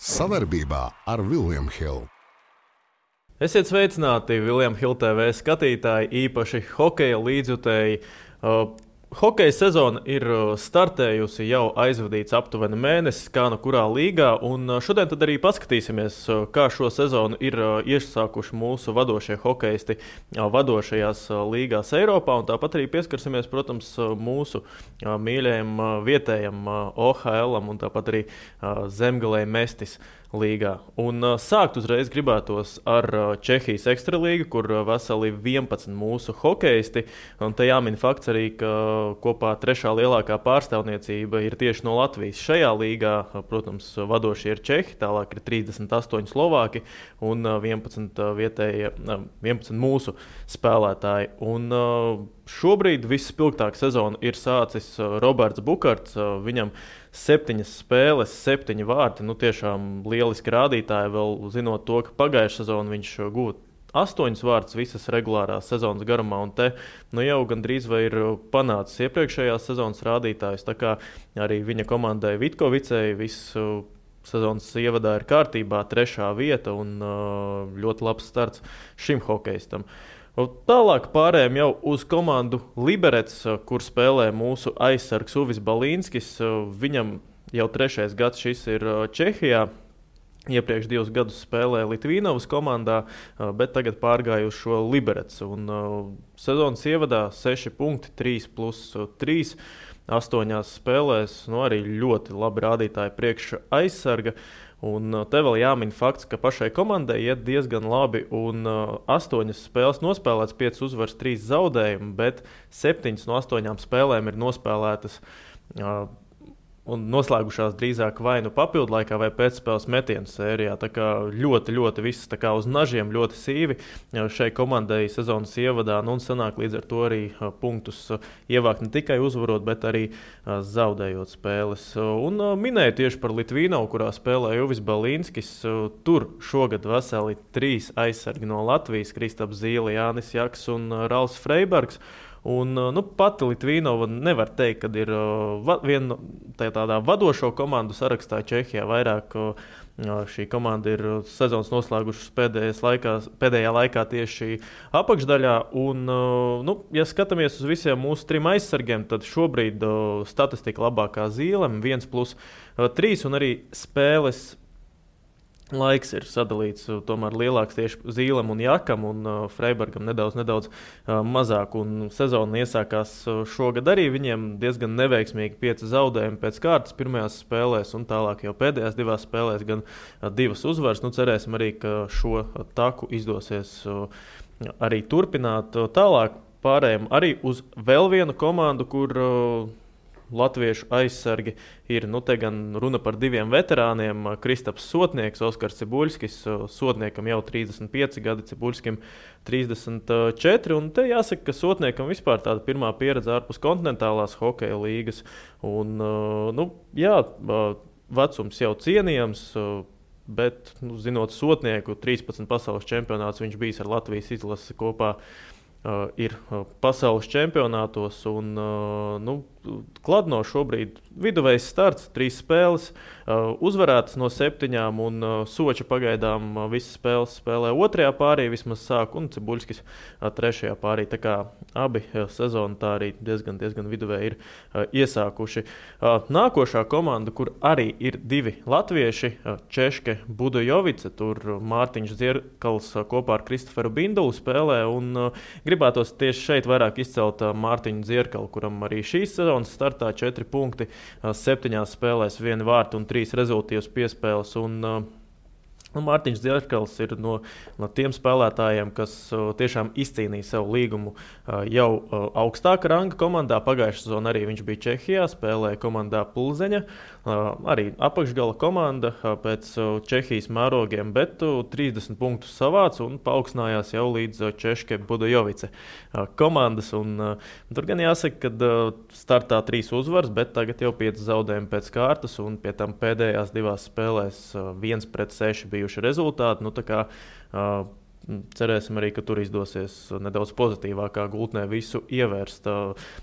Savarbībā ar William Hill. Esiet sveicināti, William Hill TV skatītāji, īpaši hokeja līdzjutēji. Hokeja sezona ir startējusi, jau aizvadīts aptuveni mēnesis, kā no kurā līgā, un šodien tad arī paskatīsimies, kā šo sezonu ir iesākuši mūsu vadošie hokeisti vadošajās līgās Eiropā, un tāpat arī pieskarsimies, protams, mūsu mīļajam vietējam OHL-am un tāpat arī Zemgalei Mestis līgā. Un sākt uzreiz gribētos ar Čehijas ekstralīgu, kur veseli 11 mūsu hokeisti, un te jāmin fakts arī, ka kopā trešā lielākā pārstāvniecība ir tieši no Latvijas. Šajā līgā, protams, vadošie ir Čehi, tālāk ir 38 Slovāki un 11 mūsu spēlētāji. Un šobrīd visspilgtāk sezonu ir sācis Roberts Bukarts, viņam 7 spēles, 7 vārti, tiešām lieliski rādītāji, vēl zinot to, ka pagājušā sezonu viņš guva 8 vārtus visas regulārās sezonas garumā, un te jau gandrīz vai ir panācis iepriekšējās sezonas rādītājus, tā kā arī viņa komandai Vitkovicei visu sezonas ievadā ir kārtībā 3. vieta un ļoti labs starts šim hokeistam. Tālāk pārējām jau uz komandu Liberets, kur spēlē mūsu aizsargs Uvis Balīnskis. Viņam jau 3. gads šis ir Čehijā. Iepriekš 2 gadus spēlēja Litvīnovas komandā, bet tagad pārgāja uz šo Liberets. Un sezonas ievadā 6 punkti, 3+3, 8 spēlēs. Arī ļoti labi rādītāji priekš aizsarga. Un te vēl jāmin fakts, ka pašai komandai iet diezgan labi, un 8 spēles nospēlēts, 5 uzvaras, 3 zaudējumi, bet 7 no 8 spēlēm ir nospēlētas un noslēgušās drīzāk vai nu papildu laikā vai pēcspēles metienu sērijā. Tā kā ļoti viss tā kā uz nažiem, ļoti sīvi šai komandai sezonas ievadā, un sanāk līdz ar to arī punktus ievākt ne tikai uzvarot, bet arī zaudējot spēles. Un minēju tieši par Litvīnovu, kurā spēlēja Uvis Balīnskis. Tur šogad veseli 3 aizsargi no Latvijas, Kristaps Zīle, Jānis Jaks un Ralfs Freibergs. Un, pati Litvīnova nevar teikt, ka ir viena tādā vadošo komandu sarakstā Čehijā. Vairāk šī komanda ir sezonas noslēgušas pēdējā laikā tieši apakšdaļā. Un, ja skatāmies uz visiem mūsu 3 aizsargiem, tad šobrīd statistika labākā Zīlem 1+3 un arī spēles laiks ir sadalīts tomēr lielāks tieši Zīlem un Jakam, un Freibergam nedaudz mazāk. Un sezona iesākās šogad arī viņiem diezgan neveiksmīgi 5 zaudējumi pēc kārtas pirmajās spēlēs, un tālāk jau pēdējās 2 spēlēs gan 2 uzvaras. Cerēsim arī, ka šo taku izdosies arī turpināt. Tālāk pārējām arī uz vēl vienu komandu, kur latviešu aizsargi ir, te gan runa par 2 veterāniem, Kristaps Sotnieks, Oskars Cibuļskis, Sotniekam jau 35 gadi, Cibuļskim 34, un te jāsaka, ka Sotniekam vispār tāda pirmā pieredze ārpus kontinentālās hokeja līgas, un, vecums jau cienījams, bet, zinot Sotnieku, 13 pasaules čempionāts viņš bijis ar Latvijas izlasi kopā, ir pasaules čempionātos, un Kladno šobrīd viduvējs starts, 3 spēles, uzvarētas no 7, un Soča pagaidām visas spēles spēlē 2. pārī, vismaz sāk, un Cibuļskis 3. pārī. Tā kā abi sezonu tā arī diezgan viduvēji ir iesākuši. Nākošā komanda, kur arī ir 2 latvieši, Češke Budojovice, tur Mārtiņš Dzierkals kopā ar Kristoferu Bindulu spēlē, un gribētos tieši šeit vairāk izcelt Mārtiņu Dzierkalu, kuram arī šīs sezonas startā 4 punkti, 7 spēlēs 1 vārtu un 3 rezultīvas piespēles. Mārtiņš Dzierkals ir no tiem spēlētājiem, kas tiešām izcīnīja sev līgumu jau augstāka ranga komandā. Pagājušā sezonā arī viņš bija Čehijā, spēlēja komandā Pulzeņa, arī apakšgala komanda pēc Čehijas mērogiem, bet 30 punktus savāca un paaugstinājās jau līdz Češke Budojovice komandas. Tur gan jāsaka, ka startā 3 uzvaras, bet tagad jau 5 zaudējumi pēc kārtas, un pie tam pēdējās 2 spēlēs 1-6 bijuši rezultāti. Tā kā cerēsim arī, ka tur izdosies nedaudz pozitīvākā gultnē visu ievērst.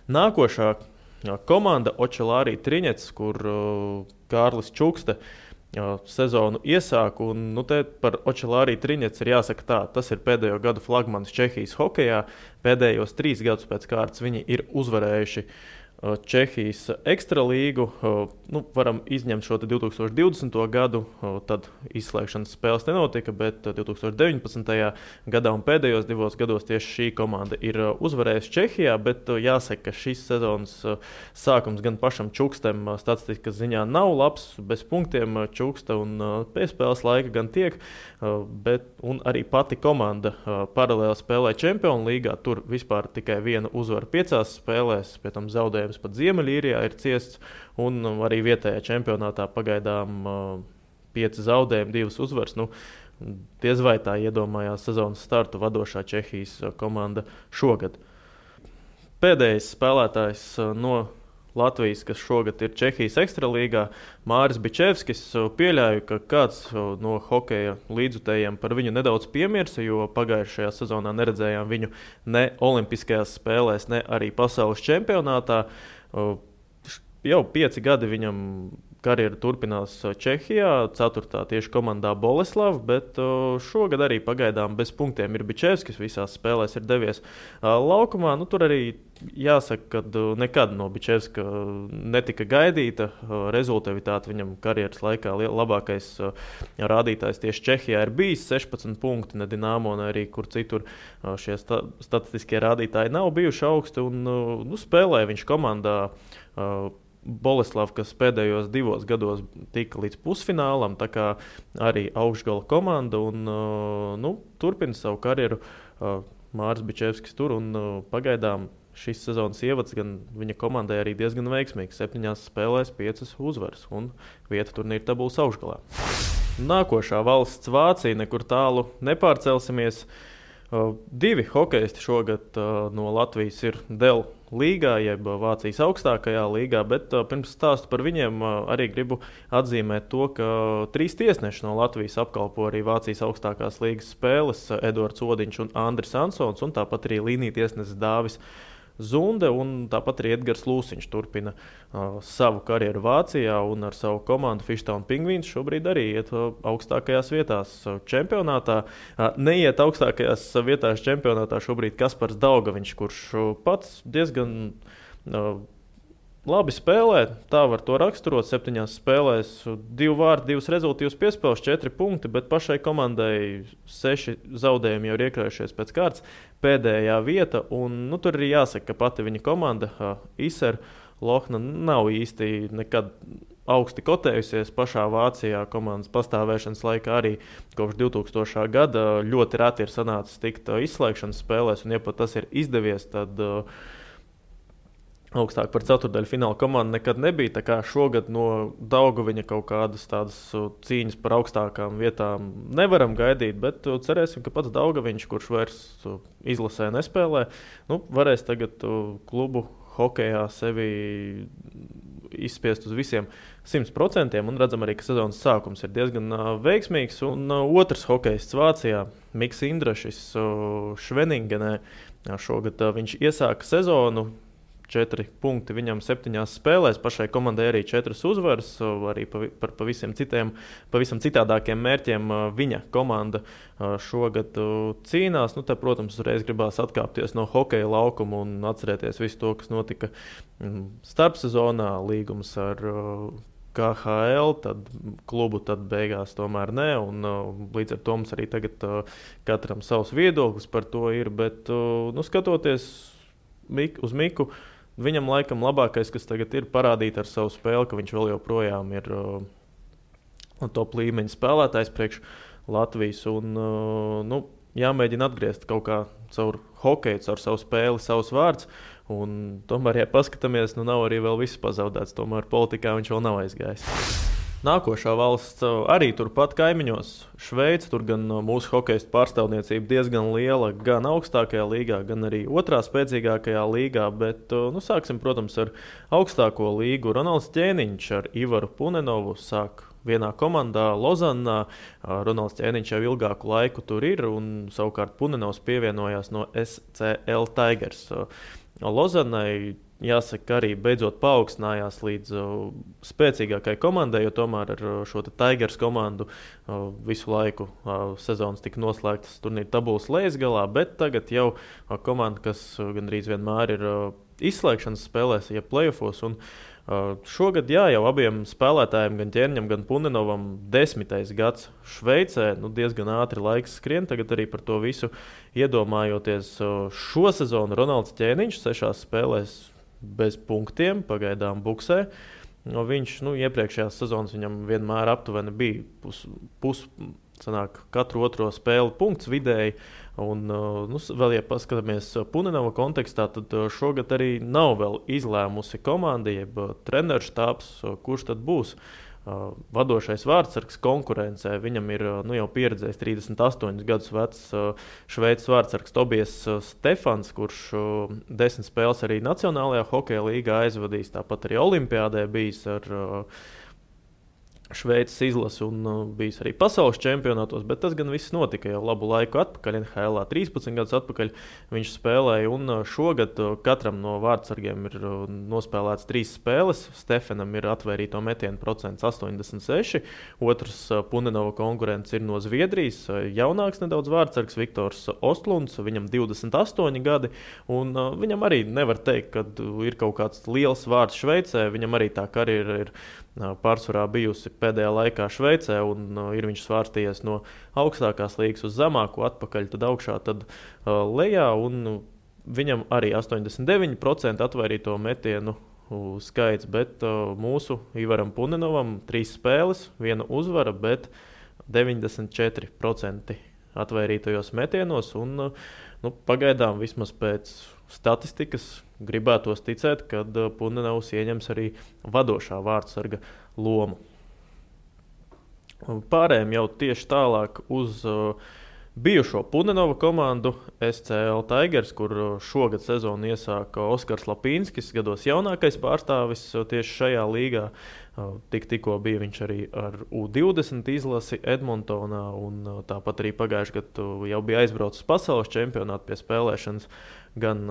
Nākošā komanda Očelārī Triņets, kur Kārlis Čukste sezonu iesāku. Un, te par Očelāriju Triņets ir jāsaka tā, tas ir pēdējo gadu flagmanis Čehijas hokejā. Pēdējos 3 gadus pēc kārtas viņi ir uzvarējuši Čehijas ekstralīgu. Varam izņemt šo 2020. gadu, tad izslēgšanas spēles nenotika, bet 2019. gadā un pēdējos 2 gados tieši šī komanda ir uzvarējusi Čehijā, bet jāsaka, ka šis sezonas sākums gan pašam Čukstam statistikas ziņā nav labs, bez punktiem Čuksta un piespēles laika gan tiek, un arī pati komanda paralēli spēlē Čempionu līgā, tur vispār tikai 1 uzvara 5 spēlēs, pie tam zaudējums pat Ziemeļīrijā ir ciests, un arī vietējā čempionātā pagaidām 5 zaudējumi, 2 uzvaras. Diez vai tā iedomājās sezonas startu vadošā Čehijas komanda šogad. Pēdējais spēlētājs no Latvijas, kas šogad ir Čehijas ekstralīgā, Māris Bičevskis. Pieļauju, ka kāds no hokeja līdzutējiem par viņu nedaudz piemirsa, jo pagājušajā sezonā neredzējām viņu ne olimpiskajās spēlēs, ne arī pasaules čempionātā. Jau 5 gadi viņam karjera turpinās Čehijā, 4. tieši komandā Boleslava, bet šogad arī pagaidām bez punktiem ir Bičevskis, visās spēlēs ir devies laukumā. Tur arī jāsaka, ka nekad no Bičevska netika gaidīta rezultatīvitāte. Viņam karjeras laikā labākais rādītājs tieši Čehijā ir bijis 16 punkti, ne Dinamo, ne arī kur citur šie statistiskie rādītāji nav bijuši augsti, un spēlēja viņš komandā Boleslava, kas pēdējos 2 gados tika līdz pusfinālam, tā kā arī augšgala komanda, un turpina savu karjeru Māris Bičevskis tur, un pagaidām šis sezonas ievads gan viņa komandai arī diezgan veiksmīgs. 7 spēlēs 5 uzvaras, un vieta turnīra tabulas augšgalā. Nākošā valsts Vācija, nekur tālu nepārcelsimies. 2 hokeisti šogad no Latvijas ir Dēl līgā, jeb Vācijas augstākajā līgā, bet pirms stāstu par viņiem arī gribu atzīmēt to, ka 3 tiesneši no Latvijas apkalpo arī Vācijas augstākās līgas spēles - Edvards Odiņš un Andris Ansons, un tāpat arī līnija tiesnesis Dāvis Zunde, un tāpat arī Edgars Lūsiņš turpina savu karjeru Vācijā, un ar savu komandu Fishtown Penguins šobrīd arī iet augstākajās vietās čempionātā. Neiet augstākajās vietās čempionātā šobrīd Kaspars Daugaviņš, kurš pats diezgan labi spēlē, tā var to raksturot. 7 spēlēs 2 vārdi, 2 rezultātus piespēles, 4 punkti, bet pašai komandai 6 zaudējumi jau ir iekrājušies pēc kārtas. Pēdējā vieta, un tur arī jāsaka, ka pati viņa komanda, Iser Lohna, nav īsti nekad augsti kotējusies pašā Vācijā komandas pastāvēšanas laikā. Arī kopš 2000. gada ļoti reti ir sanācis tikt izslēgšanas spēlēs, un ja pat tas ir izdevies, tad augstāk par ceturtdaļu fināla komandu nekad nebija. Tā kā šogad no Daugaviņa kaut kādas tādas cīņas par augstākām vietām nevaram gaidīt, bet cerēsim, ka pats Daugaviņš, kurš vairs izlasē nespēlē, varēs tagad klubu hokejā sevi izspiest uz visiem 100%, un redzam arī, ka sezonas sākums ir diezgan veiksmīgs. Un otrs hokejists Vācijā, Miks Indrašis Šveningenē, šogad viņš iesāka sezonu. 4 punkti viņam 7 spēlēs, pašai komandai arī 4 uzvaras, arī par pavisam citādākiem mērķiem viņa komanda šogad cīnās. Te, protams, uzreiz gribās atkāpties no hokeja laukuma un atcerēties visu to, kas notika starpsezonā, līgums ar KHL, tad klubu tad beigās tomēr ne, un līdz ar to mums arī tagad katram savs viedoklis par to ir, bet skatoties uz Miku, viņam laikam labākais, kas tagad ir parādīt ar savu spēli, ka viņš vēl joprojām ir top līmeņa spēlētājs priekš Latvijas, un jāmēģina atgriezt kaut kā caur hokeju, caur savu spēli, savus vārds, un tomēr, ja paskatāmies, nav arī vēl viss pazaudēts, tomēr politikā viņš vēl nav aizgājis. Nākošā valsts arī turpat kaimiņos, Šveice. Tur gan mūsu hokeistu pārstāvniecība diezgan liela, gan augstākajā līgā, gan arī otrā spēcīgākajā līgā. Bet sāksim, protams, ar augstāko līgu. Ronalds Ķēniņš ar Ivaru Punenovu sāk vienā komandā Lozannā. Ronalds Ķēniņš jau ilgāku laiku tur ir, un savukārt Punenovs pievienojās no SCL Tigers. Lozannai jāsaka, arī beidzot paaugstinājās līdz spēcīgākai komandai, jo tomēr ar šo Tigers komandu visu laiku sezonas tika noslēgtas turnīra tabulas lejasgalā, bet tagad jau komanda, kas gandrīz vienmēr ir izslēgšanas spēlēs, ja playoffos. Šogad jau abiem spēlētājiem, gan Ķerņam, gan Puninovam, 10. gads Šveicē. Diezgan ātri laiks skrien, tagad arī par to visu iedomājoties. Šo sezonu Ronalds Ķēniņš 6 spēlēs bez punktiem, pagaidām buksē. Viņš iepriekšējās sezonas viņam vienmēr aptuveni bija sanāk, katru otro spēli punkts vidēji. Un, vēl, ja paskatāmies Puninova kontekstā, tad šogad arī nav vēl izlēmusi komanda, jeb treneru štābs, kurš tad būs vadošais vārdsargs konkurencē. Viņam ir jau pieredzējis 38 gadus vecs Šveices vārdsargs Tobijas Stefans, kurš 10 spēles arī Nacionālajā hokeja līgā aizvadījis, tāpat arī Olimpiādē bijis ar Šveices izlasi un bijis arī pasaules čempionātos, bet tas gan viss notika jau labu laiku atpakaļ. NHL 13 gadus atpakaļ viņš spēlēja, un šogad katram no vārdsargiem ir nospēlēts 3 spēles. Stefanam ir atvērīto metienu procents 86, otrs Puninova konkurents ir no Zviedrijas, jaunāks nedaudz vārdsargs Viktors Ostlunds, viņam 28 gadi, un viņam arī nevar teikt, ka ir kaut kāds liels vārds Šveicē. Viņam arī tā karjera ir pārsvarā bijusi pēdējā laikā Šveicē, un ir viņš svārstījies no augstākās līgas uz zemāko, atpakaļ, tad augšā, tad lejā, un viņam arī 89% atvairīto metienu skaits, bet mūsu Ivaram Puninovam 3 spēles, 1 uzvara, bet 94% atvairītajos metienos, un pagaidām vismaz pēc statistikas gribētos ticēt, ka Puninovs ieņems arī vadošā vārdsarga lomu. Pārējiem jau tieši tālāk uz bijušo Puninova komandu SCL Tigers, kur šogad sezonu iesāka Oskars Lapīnskis, gados jaunākais pārstāvis tieši šajā līgā. Tikko bija viņš arī ar U20 izlasi Edmontonā, un tāpat arī pagājušajā gadā jau bija aizbraucis pasaules čempionātu pie spēlēšanas. Gan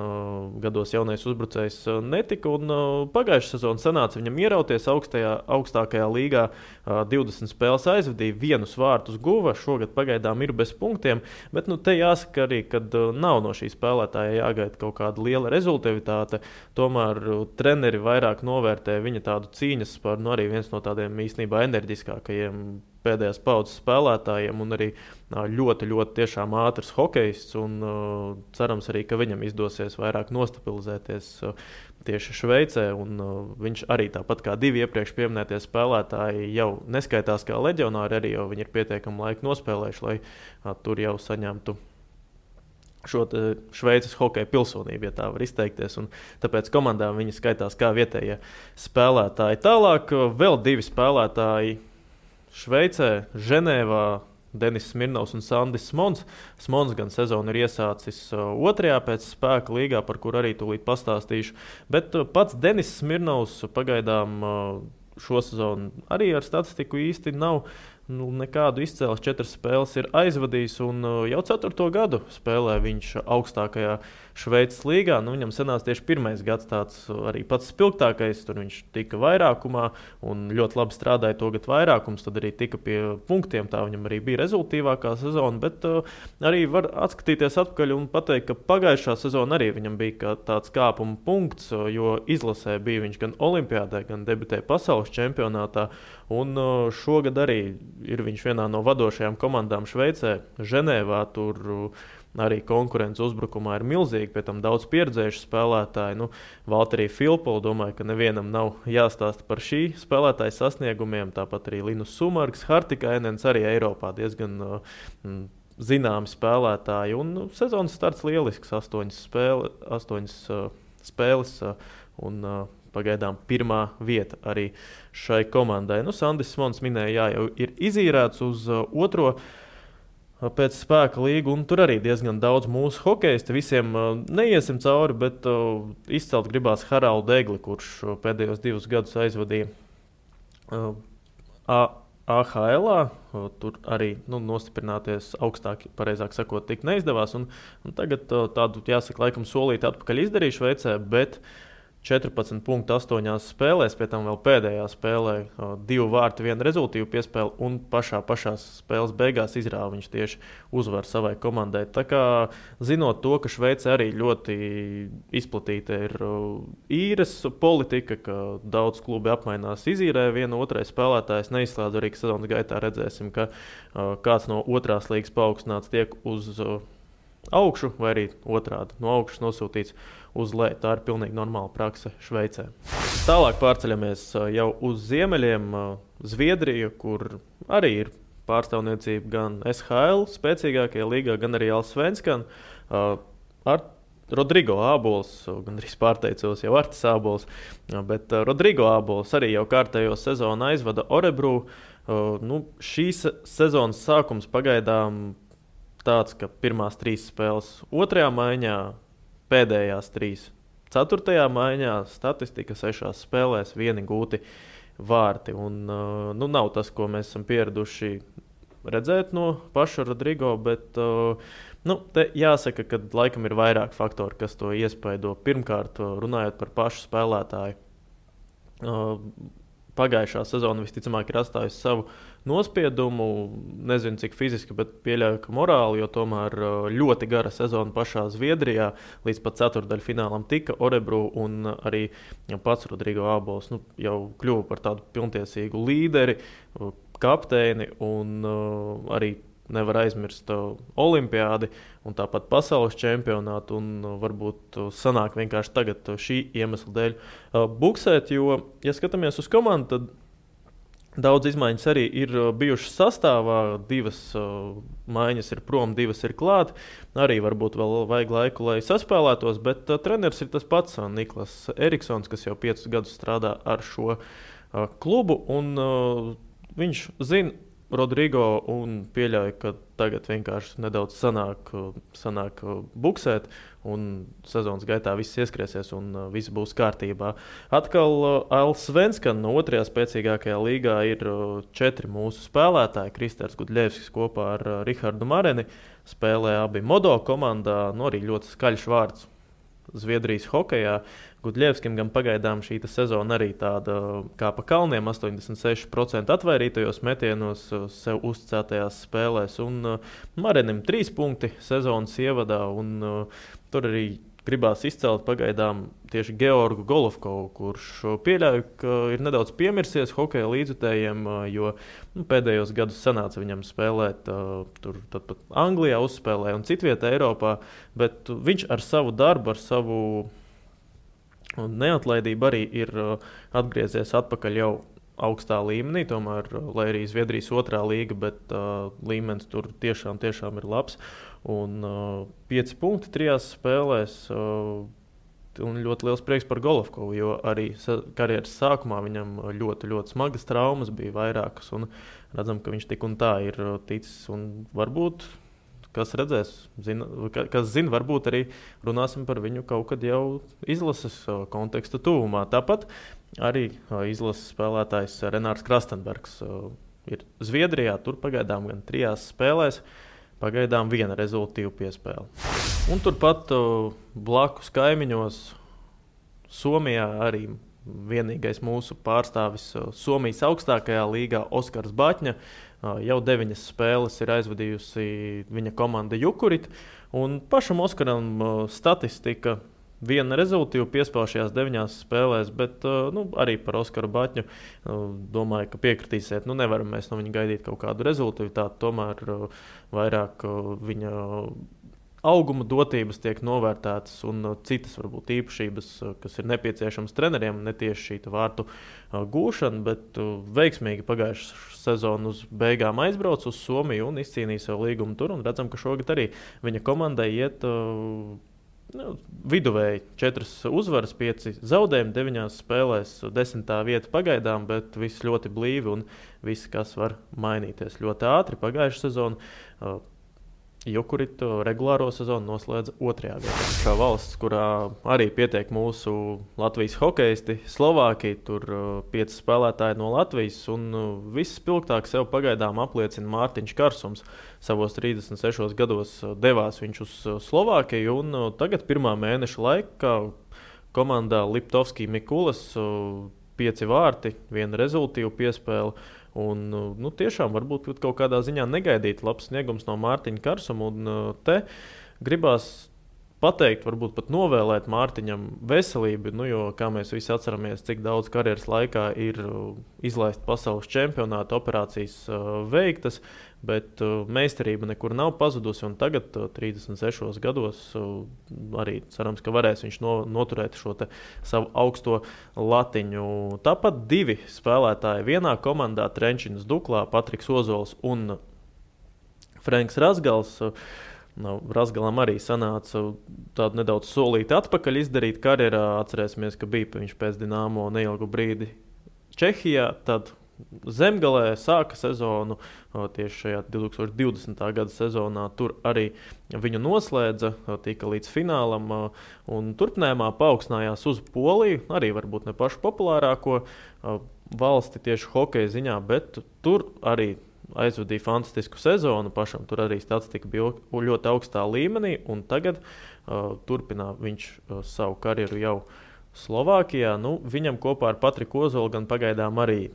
gados jaunais uzbrucējs netika, un pagājušā sezona sanāca viņam ierauties augstākajā līgā. 20 spēles aizvadīja, 1 vārtus guva, šogad pagaidām ir bez punktiem, bet te jāsaka arī, ka nav no šī spēlētāja jāgaida kaut kāda liela rezultātivitāte. Tomēr treneri vairāk novērtē viņa tādu cīņas par arī viens no tādiem īstenībā enerģiskākajiem pēdējās paudzes spēlētājiem, un arī ļoti, ļoti tiešām ātrs hokejists, un cerams arī, ka viņam izdosies vairāk nostabilizēties tieši Šveicē, un viņš arī tāpat kā 2 iepriekš pieminētie spēlētāji jau neskaitās kā leģionāri, arī jau viņi ir pietiekami laiku nospēlējuši, lai tur jau saņemtu šo Šveices hokeja pilsonību, ja tā var izteikties, un tāpēc komandā viņi skaitās kā vietējie spēlētāji. Tālāk vēl 2 spēlētāji Šveicē, Ženēvā, Denis Smirnovs un Sandis Smons. Smons gan sezonu ir iesācis 2. pēc spēka līgā, par kur arī tūlīt pastāstīšu, bet pats Denis Smirnovs pagaidām šo sezonu arī ar statistiku īsti nav nekādu izcēles. 4 spēles ir aizvadījis, un jau 4. gadu spēlē viņš augstākajā Šveices līgā. Viņam sanāca tieši 1. gads tāds arī pats spilgtākais, tur viņš tika vairākumā un ļoti labi strādāja to gadu vairākums, tad arī tika pie punktiem, tā viņam arī bija rezultīvākā sezona, bet arī var atskatīties atpakaļ un pateikt, ka pagājušā sezona arī viņam bija tāds kāpuma punkts, jo izlasē bija viņš gan Olimpiādē, gan debitēja pasaules čempionātā, un šogad arī ir viņš vienā no vadošajām komandām Šveicē, Ženēvā. Tur arī konkurence uzbrukumā ir milzīga, pēc tam daudz pieredzējuši spēlētāji. Valterija Filpola, domāju, ka nevienam nav jāstāsta par šī spēlētāja sasniegumiem. Tāpat arī Linus Sumarks, Hartikainens arī Eiropā diezgan zināmi spēlētāji. Un sezonas starts lielisks, 8 spēles un pagaidām 1. vieta arī šai komandai. Sandis Smons minēja, jau ir izīrēts uz 2. pēc spēka līgu, un tur arī diezgan daudz mūsu hokeisti. Visiem neiesim cauri, bet izcelt gribās Haraldu Egli, kurš pēdējos 2 gadus aizvadīja AHL-ā. Tur arī nostiprināties augstāk, pareizāk sakot, tik neizdevās. Un tagad tādu, jāsaka, laikam solīti atpakaļ izdarīja Šveicē, bet 14,8 spēlēs, pie tam vēl pēdējā spēlē 2 vārti, 1 rezultīvu piespēli, un pašā spēles beigās izrāva viņš tieši uzvaru savai komandai. Tā kā zinot to, ka Šveicē arī ļoti izplatīta ir īres politika, ka daudz klubi apmainās izīrē vienu otrai spēlētājs, neizslēdz arī, ka sezonas gaitā redzēsim, ka kāds no otrās līgas paaugstināts tiek uz augšu, vai arī otrādi no augšas nosūtīts uz leju. Tā ir pilnīgi normāla prakse Šveicē. Tālāk pārceļamies jau uz ziemeļiem, Zviedriju, kur arī ir pārstāvniecība gan SHL spēcīgākajā līgā, gan arī Allsvenskan. Ar Rodrigo Ābols, gan arī pārteicos jau Artis Ābols, bet Rodrigo Ābols arī jau kārtējo sezonu aizvada Örebro. Šīs sezonas sākums pagaidām tāds, ka pirmās 3 spēles 2. maiņā, pēdējās 3 4. maiņā, statistika 6 spēlēs, 1 gūti vārti. Un, nav tas, ko mēs esam pieraduši redzēt no paša Rodrigo, bet te jāsaka, ka laikam ir vairāk faktori, kas to iespaido. Pirmkārt, runājot par pašu spēlētāju. Pagājušā sezona visticamāk ir atstājusi savu nospiedumu. Nezinu, cik fiziski, bet pieļauju, ka morāli, jo tomēr ļoti gara sezona pašā Zviedrijā. Līdz pat ceturtdaļfinālam tika Örebro, un arī pats Rodrigo Ābols jau kļuva par tādu pilntiesīgu līderi, kapteini, un arī nevar aizmirst olimpiādi un tāpat pasaules čempionātu, un varbūt sanāk vienkārši tagad šī iemesla dēļ buksēt, jo, ja skatāmies uz komandu, tad daudz izmaiņas arī ir bijušas sastāvā. 2 maiņas ir prom, 2 ir klāt. Arī varbūt vēl vajag laiku, lai saspēlētos, bet treneris ir tas pats Niklas Eriksons, kas jau 5 gadus strādā ar šo klubu, un viņš zina Rodrigo un pieļauj, ka tagad vienkārši nedaudz sanāk buksēt, un sezonas gaitā viss ieskriesies un viss būs kārtībā. Atkal Allsvenskan no 2. spēcīgākajā līgā ir 4 mūsu spēlētāji. Kristers Gudļevskis kopā ar Rihardu Mareni spēlē abi Modo komandā, arī ļoti skaļš vārds Zviedrijas hokejā. Gudļevskim gan pagaidām šī sezona arī tāda kā pa kalniem, 86% atvairītajos metienos sev uzticētajās spēlēs, un Marenim 3 punkti sezonas ievadā, un tur arī gribās izcelt pagaidām tieši Georgu Golovkovu, kurš pieļauj, ka ir nedaudz piemirsies hokeja līdzjutējiem, jo pēdējos gadus sanāca viņam spēlēt tur pat Anglijā uzspēlē un citvietā Eiropā, bet viņš ar savu darbu, ar savu neatlaidība arī ir atgriezies atpakaļ jau augstā līmenī, tomēr, lai arī Zviedrijas 2. līga, bet līmenis tur tiešām ir labs. Un 5 punkti 3 spēlēs, un ļoti liels prieks par Golovkovu, jo arī karjeras sākumā viņam ļoti, ļoti smagas traumas bija vairākas, un redzam, ka viņš tik un tā ir ticis, un varbūt kas redzēs, kas zina, varbūt arī runāsim par viņu kaut kad jau izlases konteksta tuvumā. Tāpat arī izlases spēlētājs Renārs Krastenbergs ir Zviedrijā, tur pagaidām gan 3 spēlēs, pagaidām 1 rezultīvu piespēle. Un turpat blakus kaimiņos Somijā arī vienīgais mūsu pārstāvis Somijas augstākajā līgā Oskars Baķņa. Jau 9 spēles ir aizvadījusi viņa komanda Jukurit, un pašam Oskaram statistika 1 rezultīvu piespēle šajās 9 spēlēs, bet arī par Oskaru Baķņu domāju, ka piekritīsiet. Nevaram mēs no viņa gaidīt kaut kādu rezultātu, tomēr vairāk viņa auguma dotības tiek novērtētas un citas varbūt īpašības, kas ir nepieciešamas treneriem, ne tieši šī vārtu gūšana, bet veiksmīgi pagājušā sezona uz beigām aizbrauc uz Somiju un izcīnīja savu līgumu tur, un redzam, ka šogad arī viņa komandai iet viduvēji 4 uzvaras, 5 zaudējumi, 9 spēlēs, 10. vieta pagaidām, bet viss ļoti blīvi un viss, kas var mainīties ļoti ātri. Pagājušā sezona Jukurit regulāro sezonu noslēdza 2. vietā. Šā valsts, kurā arī pietiek mūsu Latvijas hokeisti, Slovākija, tur 5 spēlētāji no Latvijas, un visspilgtāk sev pagaidām apliecina Mārtiņš Karsums. Savos 36 gados devās viņš uz Slovākiju, un tagad 1. mēneša laikā komandā Liptovski Mikulas 5 vārti, 1 rezultīva piespēle. Un, tiešām varbūt kaut kādā ziņā negaidīt labs sniegums no Mārtiņa Karsuma. Un te gribās pateikt, varbūt pat novēlēt Mārtiņam veselību, jo, kā mēs visi atceramies, cik daudz karjeras laikā ir izlaist pasaules čempionāta operācijas veiktas, bet meistarība nekur nav pazudusi, un tagad, 36 gados, arī cerams, ka varēs viņš noturēt šo savu augsto latiņu. Tāpat 2 spēlētāji vienā komandā, Trenčins Duklā, Patriks Ozols un Frenks Razgals. Razgalam arī sanāca tādu nedaudz solīti atpakaļ izdarīt karjerā. Atcerēsimies, ka bija viņš pēc Dinamo neilgu brīdi Čehijā, tad Zemgalē sāka sezonu tieši šajā 2020. gada sezonā. Tur arī viņu noslēdza, tika līdz finālam un turpinājumā paaugstinājās uz Poliju, arī varbūt ne pašu populārāko valsti tieši hokeja ziņā, bet tur arī aizvadīja fantastisku sezonu. Pašam tur arī statistika bija ļoti augstā līmenī, un tagad turpina viņš savu karjeru jau Slovākijā. Viņam kopā ar Patriku Ozolu gan pagaidām arī,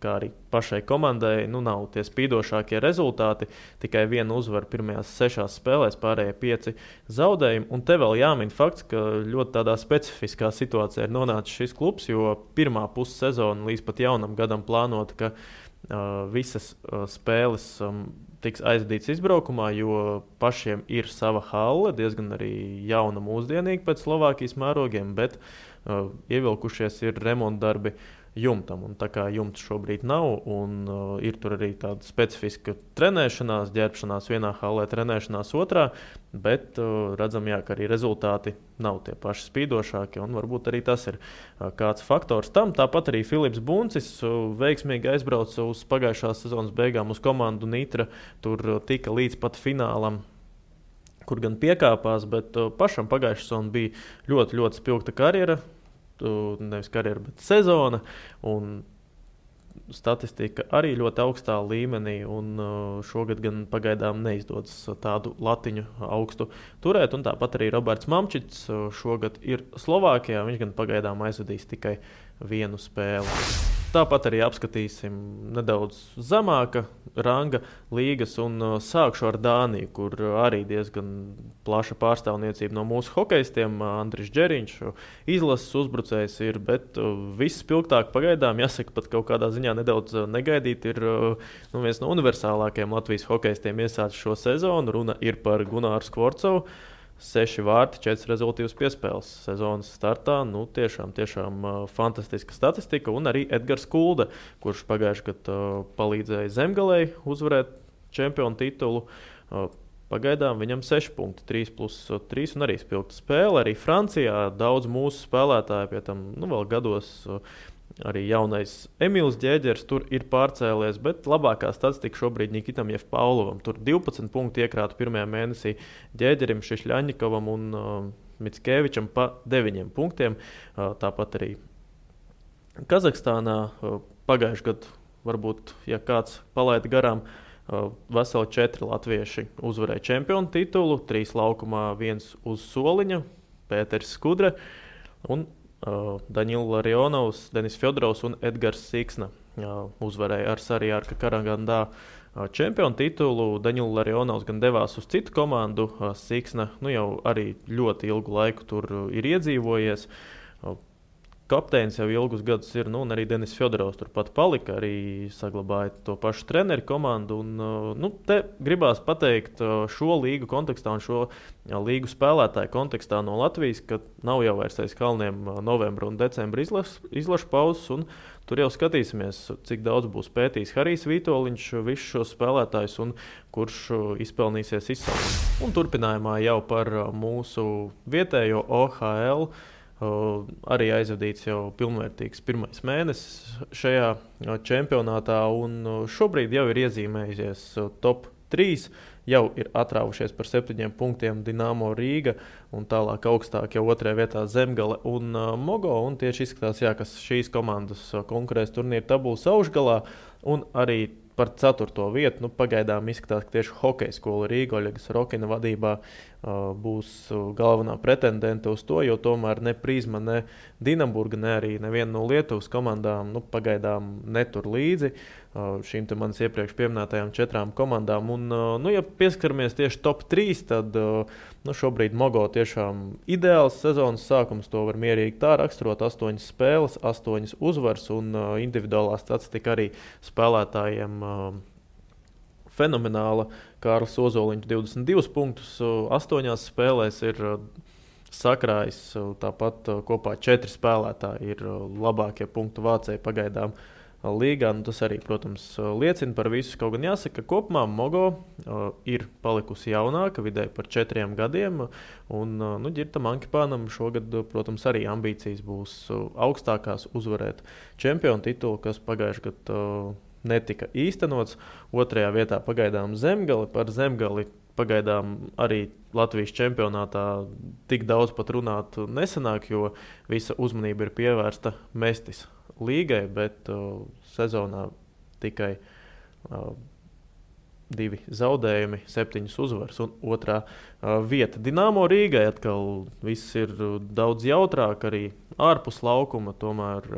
kā arī pašai komandai, nav tie spīdošākie rezultāti. Tikai 1 uzvara pirmajās 6 spēlēs, pārējie 5 zaudējumi. Un te vēl jāmin fakts, ka ļoti tādā specifiskā situācijā ir nonācis šis klubs, jo pirmā pussezona līdz pat jaunam gadam plānota, ka visas spēles tiks aizvadītas izbraukumā, jo pašiem ir sava halle, diezgan arī jauna, mūsdienīga pēc Slovākijas mērogiem, bet ievilkušies ir remontdarbi jumtam. Un tā kā jumts šobrīd nav, un ir tur arī tāda specifiska trenēšanās, ģērbšanās vienā hallē, trenēšanās otrā, bet redzam, ka arī rezultāti nav tie paši spīdošākie, un varbūt arī tas ir kāds faktors tam. Tāpat arī Filips Buncis veiksmīgi aizbrauca uz pagājušās sezonas beigām uz komandu Nitra, tur tika līdz pat finālam, kur gan piekāpās, bet pašam pagājušā sezona bija ļoti, ļoti spilgta karjera, nevis karjera, bet sezona, un statistika arī ļoti augstā līmenī, un šogad gan pagaidām neizdodas tādu latiņu augstu turēt, un tāpat arī Roberts Mamčits šogad ir Slovākijā, viņš gan pagaidām aizvadīs tikai 1 spēli. Tāpat arī apskatīsim nedaudz zemāka ranga līgas, un sākšu ar Dāniju, kur arī diezgan plaša pārstāvniecība no mūsu hokejistiem. Andris Džeriņš, izlases uzbrucējs ir, bet viss spilgtāk pagaidām, jāsaka, pat kaut kādā ziņā nedaudz negaidīt, ir viens no universālākajiem Latvijas hokejistiem iesācis šo sezonu. Runa ir par Gunāru Skvorcovu. 6 vārti, 4 rezultīvas piespēles sezonas startā. Tiešām fantastiska statistika. Un arī Edgars Kulde, kurš pagājušajā gadā palīdzēja Zemgalei uzvarēt čempionu titulu. Pagaidām viņam 6 punkti, 3+3 un arī spilgta spēle. Arī Francijā daudz mūsu spēlētāju, pie tam vēl gados arī jaunais Emīls Ģēģers tur ir pārcēlies, bet labākā statistika šobrīd Nikitam Jevpaulovam. Tur 12 punkti iekrāta pirmajā mēnesī Ģēģerim, Šišļaņikovam un Mickevičam pa 9 punktiem. Tāpat arī Kazahstānā pagājušajā gadā, varbūt, ja kāds palaida garām, veseli 4 latvieši uzvarēja čempionu titulu, 3 laukumā, 1 uz soliņa, Pēters Skudre un Daņils Larionovs, Denis Fjodorovs un Edgars Siksna uzvarēja ar Sarjārka Karagandā čempionu titulu. Daņils Larionovs gan devās uz citu komandu, Siksna jau arī ļoti ilgu laiku tur ir iedzīvojies. Kapteinis jau ilgus gadus ir, un arī Denis Fjodorovs turpat palika, arī saglabāja to pašu treneru komandu. Te gribās pateikt šo līgu kontekstā un šo līgu spēlētāju kontekstā no Latvijas, ka nav jau vairs aiz kalniem novembra un decembra izlašu pauzes, un tur jau skatīsimies, cik daudz būs pētījis Harijs Vītoliņš visus šos spēlētājus un kurš izpelnīsies izsaukumu. Un turpinājumā jau par mūsu vietējo OHL. Arī aizvadīts jau pilnvērtīgs pirmais mēnesis šajā čempionātā, un šobrīd jau ir iezīmējusies top 3. Jau ir atrāvušies par 7 punktiem Dinamo Rīga, un tālāk augstāk jau 2. vietā Zemgale un Mogo. Un tieši izskatās, ka šīs komandas konkurēs turnīra tabulas augšgalā, un arī par 4. vietu. Pagaidām izskatās, ka tieši hokeja skola Rīga Oļegas Rokina vadībā būs galvenā pretendente uz to, jo tomēr ne Prizma, ne Dinamburga, ne arī neviena no Lietuvas komandām pagaidām netur līdzi šīm te manas iepriekš pieminētajām 4 komandām. Un, ja pieskaramies tieši top 3, tad šobrīd Mogo tiešām ideāls sezonas sākums, to var mierīgi tā raksturot, 8 spēles, 8 uzvaras un individuālā statistika arī spēlētājiem fenomenāla. Kārlis Ozoliņš 22 punktus 8 spēlēs ir sakrājis, tāpat kopā 4 spēlētāji ir labākie punktu vācēji pagaidām līgā. Tas arī, protams, liecina par visu. Kaut gan jāsaka, ka kopumā Mogo ir palikusi jaunāka, vidēji par 4 gadiem. Un Ģirtam Ankipānam šogad, protams, arī ambīcijas būs augstākās uzvarēt čempionu titulu, kas pagājušajā gadā netika īstenots. 2. vietā pagaidām Zemgali. Par Zemgali pagaidām arī Latvijas čempionātā tik daudz pat runāt nesanāk, jo visa uzmanība ir pievērsta Mestis līgai, bet sezonā tikai 2 zaudējumi, 7 uzvaras un 2. vieta. Dinamo Rīgai atkal viss ir daudz jautrāk, arī ārpus laukuma, tomēr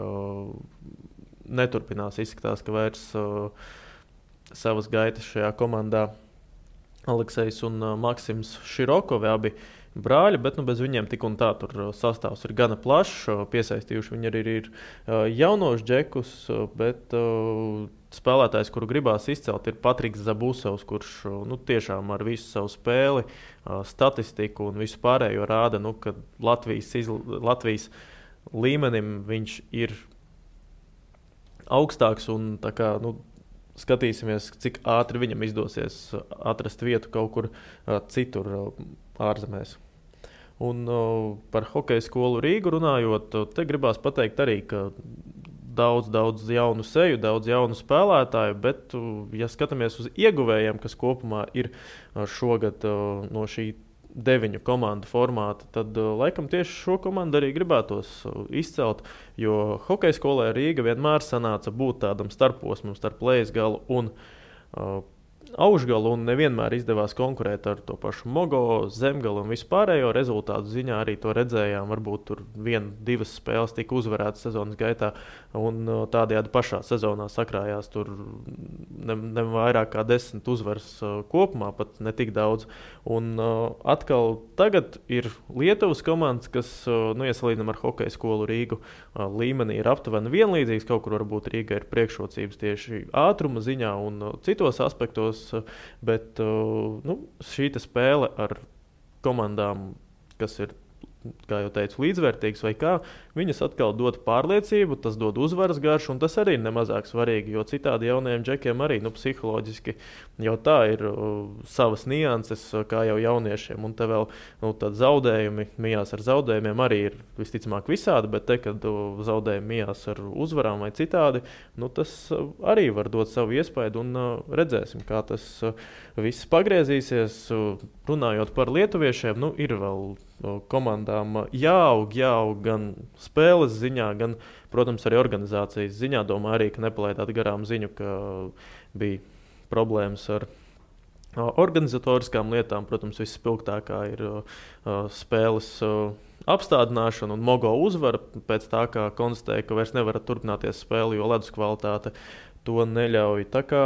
neturpinās. Izskatās, ka vairs savas gaitas šajā komandā Aleksejs un Maksims Širokovi, abi brāļi, bet bez viņiem tik un tā tur sastāvs ir gana plašs. Piesaistījuši viņi arī ir jaunos džekus, bet spēlētājs, kuru gribās izcelt, ir Patriks Zabusovs, kurš tiešām ar visu savu spēli, statistiku un visu pārējo rāda, ka Latvijas līmenim viņš ir augstāks un tā kā, skatīsimies, cik ātri viņam izdosies atrast vietu kaut kur citur ārzemēs. Un par hokeja skolu Rīgu runājot, te gribās pateikt arī, ka daudz jaunu seju, daudz jaunu spēlētāju, bet, ja skatāmies uz ieguvējiem, kas kopumā ir šogad no šī 9 komandu formāta, tad laikam tieši šo komandu arī gribētos izcelt, jo hokeja skolē Rīga vienmēr sanāca būt tādam starposmam starp Leisgalu un Aušgalu, un nevienmēr izdevās konkurēt ar to pašu Mogo, Zemgalu un vispārējo. Rezultātu ziņā arī to redzējām, varbūt tur 1-2 spēles tika uzvarētas sezonas gaitā, un tādējādi pašā sezonā sakrājās tur ne vairāk kā 10 uzvaras kopumā, pat ne tik daudz. Un atkal tagad ir Lietuvas komandas, kas, ja salīdzinām ar hokeja skolu Rīgu, līmenī ir aptuveni vienlīdzīgs, kaut kur varbūt Rīga ir priekšrocības tieši ātruma ziņā un citos aspektos, bet šī spēle ar komandām, kas ir, kā jau teicu, līdzvērtīgas vai kā, viņas atkal dod pārliecību, tas dod uzvaras garšu, un tas arī ir nemazāk svarīgi, jo citādi jaunajiem džekiem arī psiholoģiski jau tā ir savas nianses, kā jau jauniešiem, un te vēl tad zaudējumi, mijās ar zaudējumiem arī ir visticamāk visādi, bet te, kad zaudējumi mijās ar uzvarām vai citādi, tas arī var dot savu iespaidu, un redzēsim, kā tas viss pagriezīsies. Runājot par lietuviešiem, ir vēl komandām jāaug gan spēles ziņā, gan, protams, arī organizācijas ziņā. Domāju arī, ka nepalaidāt garām ziņu, ka bija problēmas ar organizatoriskām lietām. Protams, visspilgtākā ir spēles apstādināšana un Mogo uzvara pēc tā, kā konstatēja, ka vairs nevar turpināties spēle, jo ledus kvalitāte to neļauj. Tā kā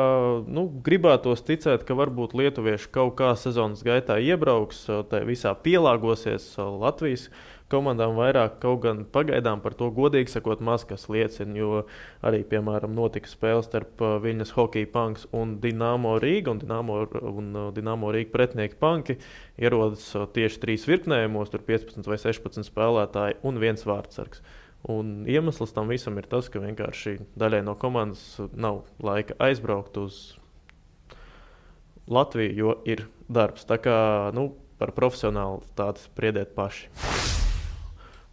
gribētos ticēt, ka varbūt lietuvieši kaut kā sezonas gaitā iebrauks, tai visā pielāgosies Latvijas komandām vairāk, kaut gan pagaidām par to godīgi sakot maz kas liecina, jo arī, piemēram, notika spēle starp Viļņas Hockey Punks un Dinamo Rīga, un Dinamo Rīga pretinieki Panki ierodas tieši 3 virknējumos, tur 15 vai 16 spēlētāji un 1 vārdsargs. Un iemesls tam visam ir tas, ka vienkārši daļai no komandas nav laika aizbraukt uz Latviju, jo ir darbs. Tā kā par profesionālitāti spriediet paši.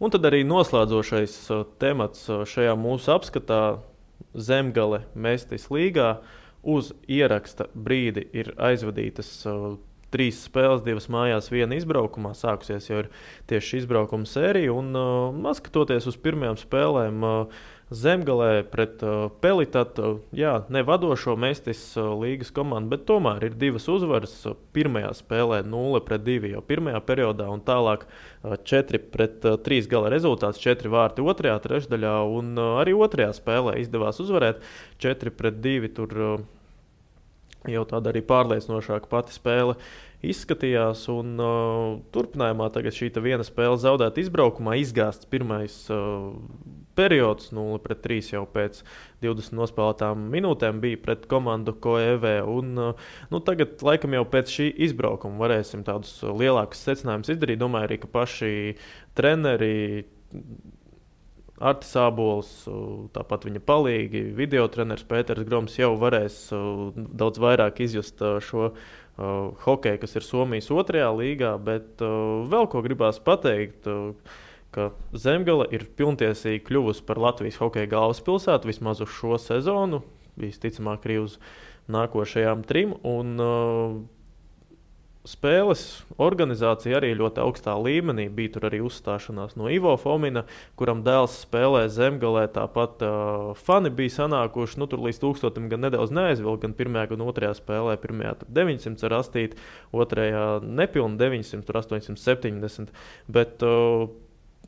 Un tad arī noslēdzošais temats šajā mūsu apskatā - Zemgale Mestis līgā. Uz ieraksta brīdi ir aizvadītas 3 spēles, 2 mājās, 1 izbraukumā. Sākusies jau ir tieši izbraukuma sērija. Un skatoties uz pirmajām spēlēm, Zemgalē pret Pelitatu, ne vadošo Mestis līgas komandu, bet tomēr ir 2 uzvaras. Pirmajā spēlē 0-2 jau pirmajā periodā un tālāk 4-3 gala rezultāts, 4 vārti otrajā trešdaļā un arī otrajā spēlē izdevās uzvarēt 4-2. Tur jau tāda arī pārliecinošāka pati spēle izskatījās. Un, turpinājumā tagad šī viena spēle zaudēta izbraukumā, izgāsts pirmais periods 0-3 jau pēc 20 nospēlētām minūtēm bija pret komandu Koevē. Un, tagad laikam jau pēc šī izbraukuma varēsim tādus lielākus secinājumus izdarīt. Domāju arī, ka paši treneri Artis Ābols, tāpat viņa palīgi, video treneris Pēters Groms jau varēs daudz vairāk izjust šo hokeju, kas ir Somijas 2. līgā, bet vēl ko gribās pateikt, ka Zemgale ir pilntiesīgi kļuvusi par Latvijas hokeja galvaspilsētu vismaz uz šo sezonu, visticamāk arī uz nākošajām 3, un spēles organizācija arī ļoti augstā līmenī. Bija tur arī uzstāšanās no Ivo Fomina, kuram dēls spēlē Zemgalē. Tāpat fani bija sanākuši, tur līdz 1000 gan nedaudz neaizvilka, gan pirmajā, gan otrajā spēlē. Pirmajā tur 900 ar astīti, otrajā nepilni 900, tur 870. Bet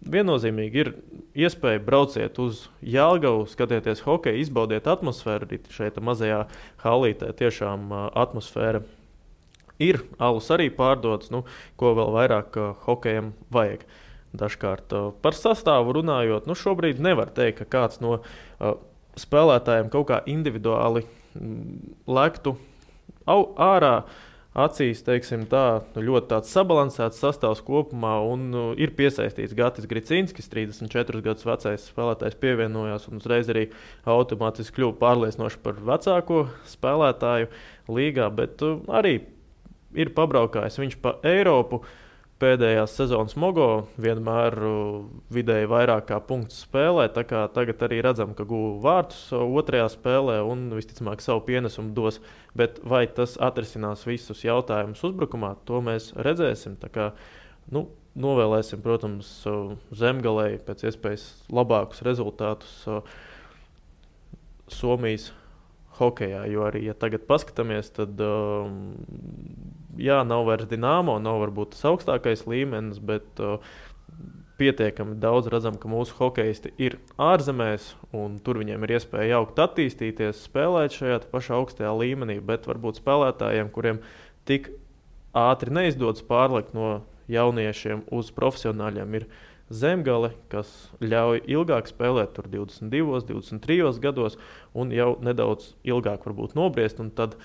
viennozīmīgi ir iespēja brauciet uz Jelgavu, skatieties hokeju, izbaudiet atmosfēru. Arī šeit mazajā halītē tiešām atmosfēra ir, alus arī pārdots, ko vēl vairāk hokejam vajag. Dažkārt par sastāvu runājot, šobrīd nevar teikt, ka kāds no spēlētājiem kaut kā individuāli lektu ārā acīs, teiksim tā, ļoti tāds sabalansēts sastāvs kopumā, un ir piesaistīts Gatis Gricinskis, 34 gadus vecais spēlētājs pievienojās un uzreiz arī automātiski kļuva pārliecinoši par vecāko spēlētāju līgā, bet arī ir pabraukājis viņš pa Eiropu pēdējās sezonas Mogo, vienmēr vidēji vairāk kā punktus spēlē, tā kā tagad arī redzam, ka guva vārtus otrajā spēlē un visticamāk savu pienesumu dos, bet vai tas atrisinās visus jautājumus uzbrukumā, to mēs redzēsim, tā kā, novēlēsim, protams, Zemgalei pēc iespējas labākus rezultātus Somijas hokejā, jo arī, ja tagad paskatāmies, tad nav vairs Dinamo, nav varbūt tas augstākais līmenis, bet pietiekami daudz redzam, ka mūsu hokejisti ir ārzemēs, un tur viņiem ir iespēja jaukt attīstīties, spēlēt šajā pašā augstajā līmenī, bet varbūt spēlētājiem, kuriem tik ātri neizdodas pārlikt no jauniešiem uz profesionāļiem, ir Zemgale, kas ļauj ilgāk spēlēt, tur 22, 23 gados, un jau nedaudz ilgāk varbūt nobriest, un tad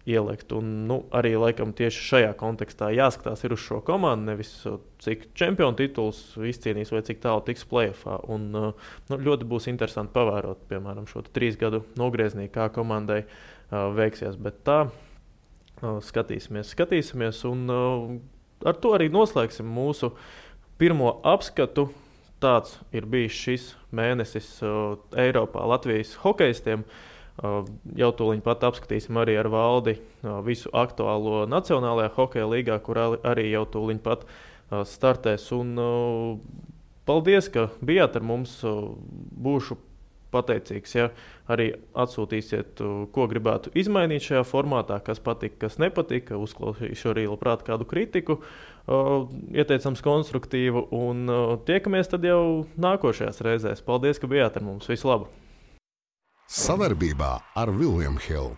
ielikt. Un, arī laikam tieši šajā kontekstā jāskatās ir uz šo komandu, nevis cik čempionu tituls izcīnīs vai cik tālu tiks play-offā. Un ļoti būs interesanti pavērot, piemēram, šo 3 gadu nogrieznī, kā komandai veiksies. Bet tā skatīsimies, un ar to arī noslēgsim mūsu pirmo apskatu. Tāds ir bijis šis mēnesis Eiropā Latvijas hokejistiem. Jau tūliņ pat apskatīsim arī ar Valdi visu aktuālo Nacionālajā hokeja līgā, kur arī jau tūliņ pat startēs. Un paldies, ka bijāt ar mums. Būšu pateicīgs, ja arī atsūtīsiet, ko gribētu izmainīt šajā formātā, kas patika, kas nepatika. Uzklausīšu arī labprāt kādu kritiku, ieteicams konstruktīvu, un tiekamies tad jau nākošajās reizēs. Paldies, ka bijāt ar mums. Visu labu! Savarbībā ar William Hill.